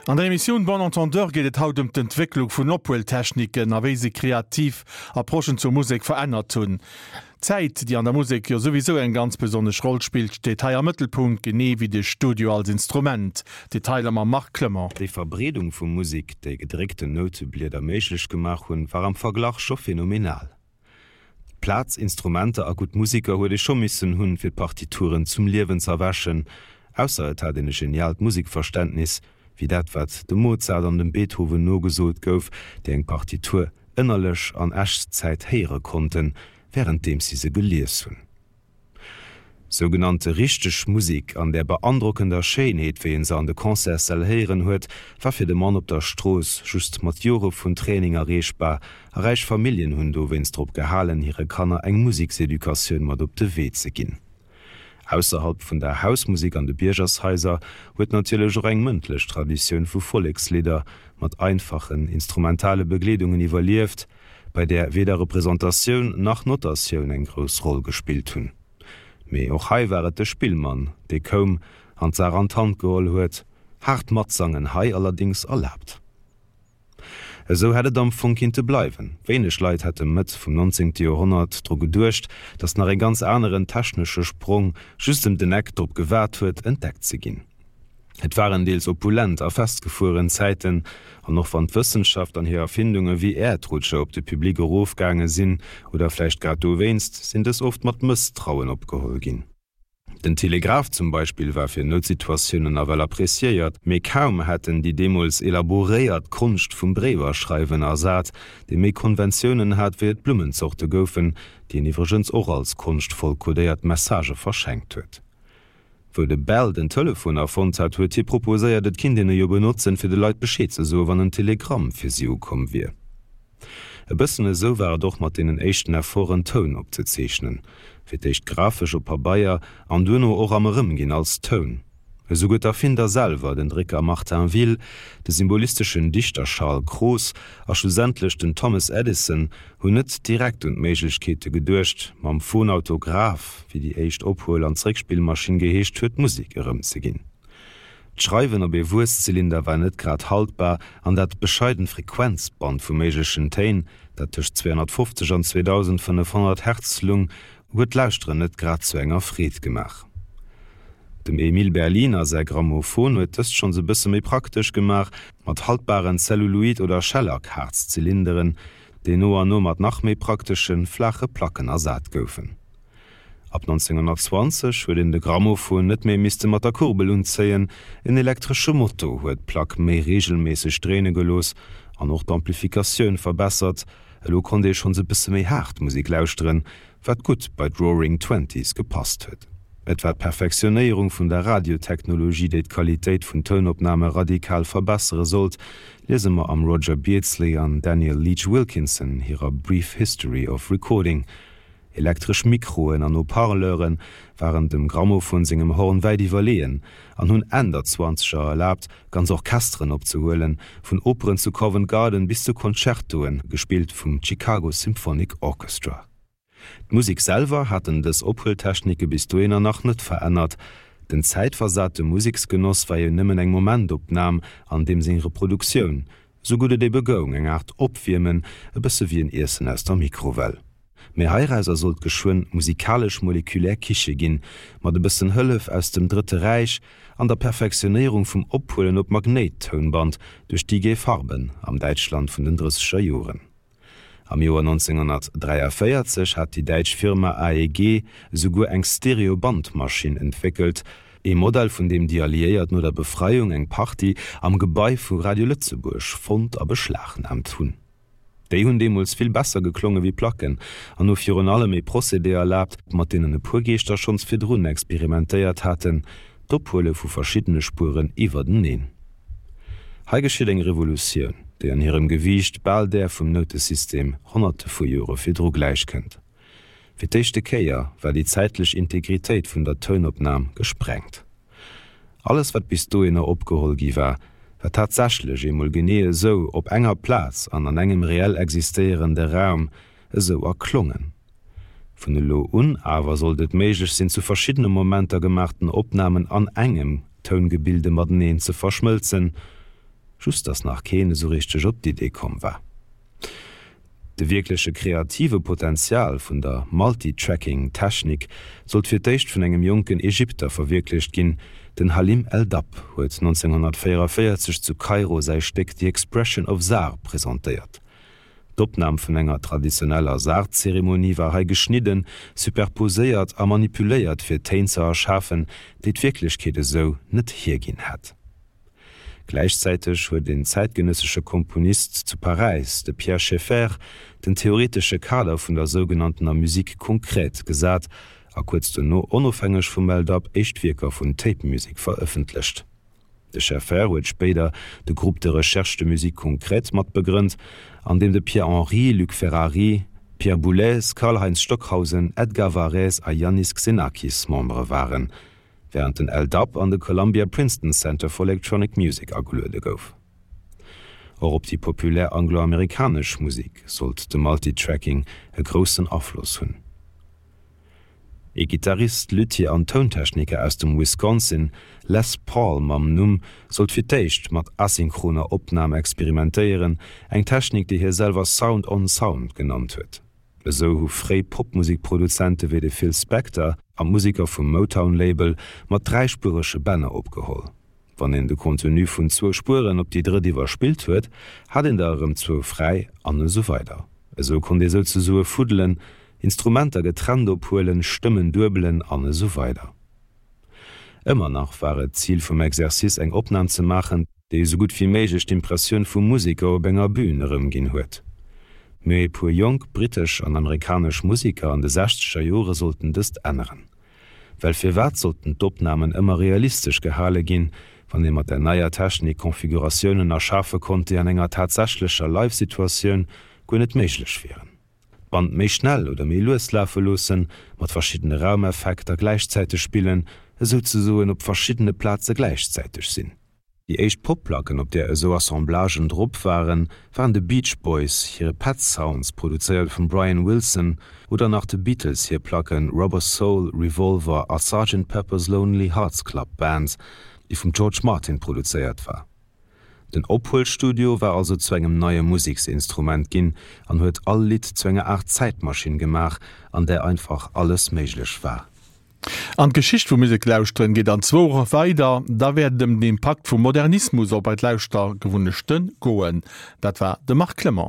An der Emissioun Bon Entendeur geet et haut ëm d'Entwécklung vun Ophueltechniken a wéi se kreativ Approchen zur Musek verännert hunn. D'Zäit, déi an der Musek jo souwisou eng ganz besonnesch Roll spillt, steet hei am Mëttelpunkt, genee wéi de Studio als Instrument. Detailer mam Marc Clement. Déi Verbreedung vu Musek, déi gedréckten Nouteblieder méiglech gemaach hunn, war am Verglach scho phänomenal. Plaz, Instrumenter a gutt Musiker huet ee scho missen hunn, fir d'Partituren zum Liewen z'erwächen, ausser et hat een e geniaalt Musikverständnis, wéi dat wat dem Mozart an dem Beethoven nogesot gouf, déi eng Partitur ënnerlech an Echtzäit héiere konnten, wärenddeems si se gelies hunn. Sougenannte richteg Musik an där beandrockender Schéinheet, wéi een se an de Concertssäll héieren huet, war fir de Mann op der Strooss just mat Jore vun Training erreechbar, a räich Familljen hunn dowéinst drop gehalen, hire Kanner eng Musekseducatioun mat op de Wee ze ginn. Ausserhalb vun der Hausmusek an de Biergershaiser huet natierlech och eng mëndlech Traditioun vu Vollekslidder mat einfachen instrumentale Begleedungen iwwerlieft, bei där weder Representatioun nach Notatioun eng grouss Roll gespillt hunn. Mee och hei war et de Spillmann, dee koum an d'Saach an d'Hand geholl huet, haart Matsangen hei allerdéngs erlaabt. Esou hätt et am Fong kinnte bleiwen. Wéineg Leit hätte Mëtt vum 19. Joerhonnert dru geduecht, datt nach e ganz aneren technesche Sprong just ëm den Eck drop gewaart huet, entdeckt ze ginn. Et waren deels opulent a festgefueren Zäiten, an och wann d'Wëssenschaft an hir Erfindunge wéi Äerdrutscher op de Public erofgaange sinn, oder vläicht grad dowéinst, sinn dës oft mat Mësstrauen opgeholl ginn. Den Telegraph zum Beispill war fir Noutsituatiounen nawell appreciéiert, mee kaum hat en déi deemools elaboréiert Konscht vum Bréiwerschreiwen ersat, dee méi Konventiounen hat wéi et Blummenzorte goufen, déi en iwwregens och als konschtvoll kodéiert Messagë verschenkt huet. Wou de Bell den Telefon erfonnt hat, huet hie proposéiert, et kinnt een e jo benotzen, fir de Leit Bescheed ze soen, wann en Telegramm fir si ukomm wier. E bëssen esou war et och mat deenen éischten Efforten, Toun opzezeechnen, fir d'éischt grafesch op Pabeier an duerno och am Erëmginn als Toun. Esouguer d'Erfinder selwer, den Drécker Martin Will, de symbolisteschen Dichter Charles Cros a schlussendlech den Thomas Edison, hunn net direkt un d'Méiglechkeete geduecht, mam Phonautograph, wéi déi éischt Ophuel an Zréckspillmaschinn geheescht huet, Musek erëmzeginn. D'Schreiwen op ee Wuesszylinder war net grad haltbar an dat bescheident Frequenzband vu méiglechen Téin, dat tëscht 250 an 2500 Hertz lung, huet d'Lauschteren net grad zu enger Freed gemaach. Dem Emile Berliner säi Grammophon huet dëst schonns e bësse méi praktesch gemaach, mat haltbaren Zelluloid oder Schellack-Haarzylinderen, déi no an no mat nach méi prakteschen, flaache Placken ersat goufen. Ab 1920 huet een de Grammophon net méi misste mat der Kurbel unzéien, en elektresche Moto huet d'Plack méi reegelméisseg dréine gelooss an och d'Amplifikatioun verbessert. Elo konnt ee schonns e bësse méi haart Musek lauschteren, wat gutt bei d'Roaring Twenties gepasst huet. Et war d'Perfektionéierung vun der Radiotechnologie, déi d'Qualitéit vun Tounopname radikal verbessere sollt, liese mer am Roger Beardsley an Daniel Leach Wilkinson hirer Brief History of Recording. Elektresch Mikroen an Haut-Parleure waren dem Grammophon sengem Horn wäit iwwerleeën an hunn Enn der Zwanzeger erlaabt, ganz Orchesteren opzehuelen, vun Operen zu Covent Garden bis zu Concertoen, gespillt vum Chicago Symphonic Orchestra. D'Musek selwer haten dës Ophueltechnike bis dohinner nach net verännert. Den zäitversate Museksgenoss war jo nëmmen eng Momentopnam an deem seng Reproduktioun, sou gutt et ebe goung, eng Aart Opwiermen, e bësse wéi en Iessen aus der Mikrowell. Mee heirauser sollt geschwënn musikalesch-molekulär Kiche ginn, mat e bëssen Hëllef aus dem Drëtte Räich an der Perfektionéierung vum Ophuelen op Magnéittounband duerch d'IG Farben am Däitschland vun den drësseger Joren. Am Joer 1943 hat déi däitsch Firma AEG esouguer eng Stereo-Bandmaschinn entwéckelt, ee Modell vun deem déi Alliéiert no der Befreiung eng Partie am Gebai vu Radio Lëtzebuerg fonnt a beschlagnaamt hunn. Déi hunn deemools vill besser geklonge wéi Placken an hu virun allem ee Procédé erlaabt, mat deenen e puer Geeschter schonns virdrun experimentéiert haten, d'Ophuele vu verschiddene Spueren iwwerteneen. Hei geschitt eng Revolutioun, déi an hirem Gewiicht bal där vum Noutesystem honnerte vu Jore virdru gläichkënnt. Fir d'éischte Kéier war déi zäitlech Integritéit vun der Tounopnam gesprengt. Alles wat bis dohinner opgeholl gi war, war tatsächlech eemol genee esou op enger Plaz an an engem reell existéierende Raum esou erklongen. Vun elo un awer sollt et méiglech sinn, zu verschiddene Momenter gemaachten Opnamen an engem Toungebilde mateneen ze verschmëlzen. Just dass nach keen esou richteg op d'Idee komm war. De wierkleche kreative Potenzial vun der Multitracking-Technik sollt fir d'éischt vun engem jonken Ägypter verwierklecht ginn, Den Halim El-Dabh huet 1944 zu Kairo säi Stéck The Expression of Zar presentéiert. D'Opnam vun enger traditioneller Zar-Zeremonie war hei geschnidden, superposéiert a manipuléiert fir Téin ze erschafen, déi d'Wierklechkeet esou net hierginn hätt. Gläichzäiteg huet en zäitgenëssesche Komponist zu Paräis, de Pierre Schaeffer, den theoretesche Kader vun der sougenanntener Musique concrète gesat a kuerz dono onofhängeg vum El-Dab éischt Wierker vun Tape Music verëffentlecht. De Schaeffer huet spéider de Groupe de recherche de musique concrète mat begrënnt, an deem de Pierre Henry, Luc Ferrari, Pierre Boulez, Karlheinz Stockhausen, Edgar Varèse a Iannis Xenakis Membere waren. Während den El-Dab an de Columbia Princeton Center for Electronic Music ageluede gouf. Och op déi populär angloamerikanesch Musek sollt de Multitracking e groussen Afloss hunn. Ee Gittarist, Luthier an Tountechniker aus dem Wisconsin, Les Paul mam Numm, sollt fir d'éischt mat asynchroner Opnam experimentéieren, eng Technik, déi hie selwer Sound on Sound genannt huet. Esou hu fréi Popmusikproduzente wéi de Phil Spector an d'Museker vum Motown-Label mat dräispuerege Bänner opgeholl. Wann een de Contenu vun zwou Spueren op déi drëtt iwwerspillt huet, hat een der erëm zwou fräi an esou weider. Esou konnt ee souzesoe fuddelen, Instrumenter getrennt ophuelen, Stëmmen duebelen an esou weider. Ëmmer nach war et d'Zil vum Exercice eng Opnam ze maachen, déi esou gutt wéi méiglech d'Impressioun vum Museker op enger Bühn erëmginn huet. Mee e puer jonk brittesch an amerikanesch Museker an de sechzeger Jore sollten dëst änneren. Well firwat sollten d'Opnamen ëmmer realistesch gehale ginn, wann ee mat der neier Technik Konfiguratiounen erschafe konnt, déi an enger tatsächlecher Live-Situatioun guer net méiglech wieren? D'Band méi schnell oder méi lues lafe loossen, mat verschiddene Raumeffekter gläichzäiteg spillen, esouzesoen op verschiddene Plaze gläichzäiteg sinn. Déi éischt Popplacken, op där esou Assemblagen drop waren, waren de Beach Boys hire Pet Sounds, produzéiert vum Brian Wilson, oder nach de Beatles hir Placken Rubber Soul, Revolver a Sergeant Pepper's Lonely Hearts Club Band, déi vum George Martin produzéiert war. Den Ophuelstudio war also zu engem neie Museksinstrument ginn an huet all Lidd zu enger Aart Zäitmaschinn gemaach, an där einfach alles méiglech war. An d'Geschicht vum Museklauschteren geet an zwou Woche weider. Da wäert et ëm den Impakt vum Modernismus op eis Lauschtergewunnechte goen. Dat war de Marc Clement.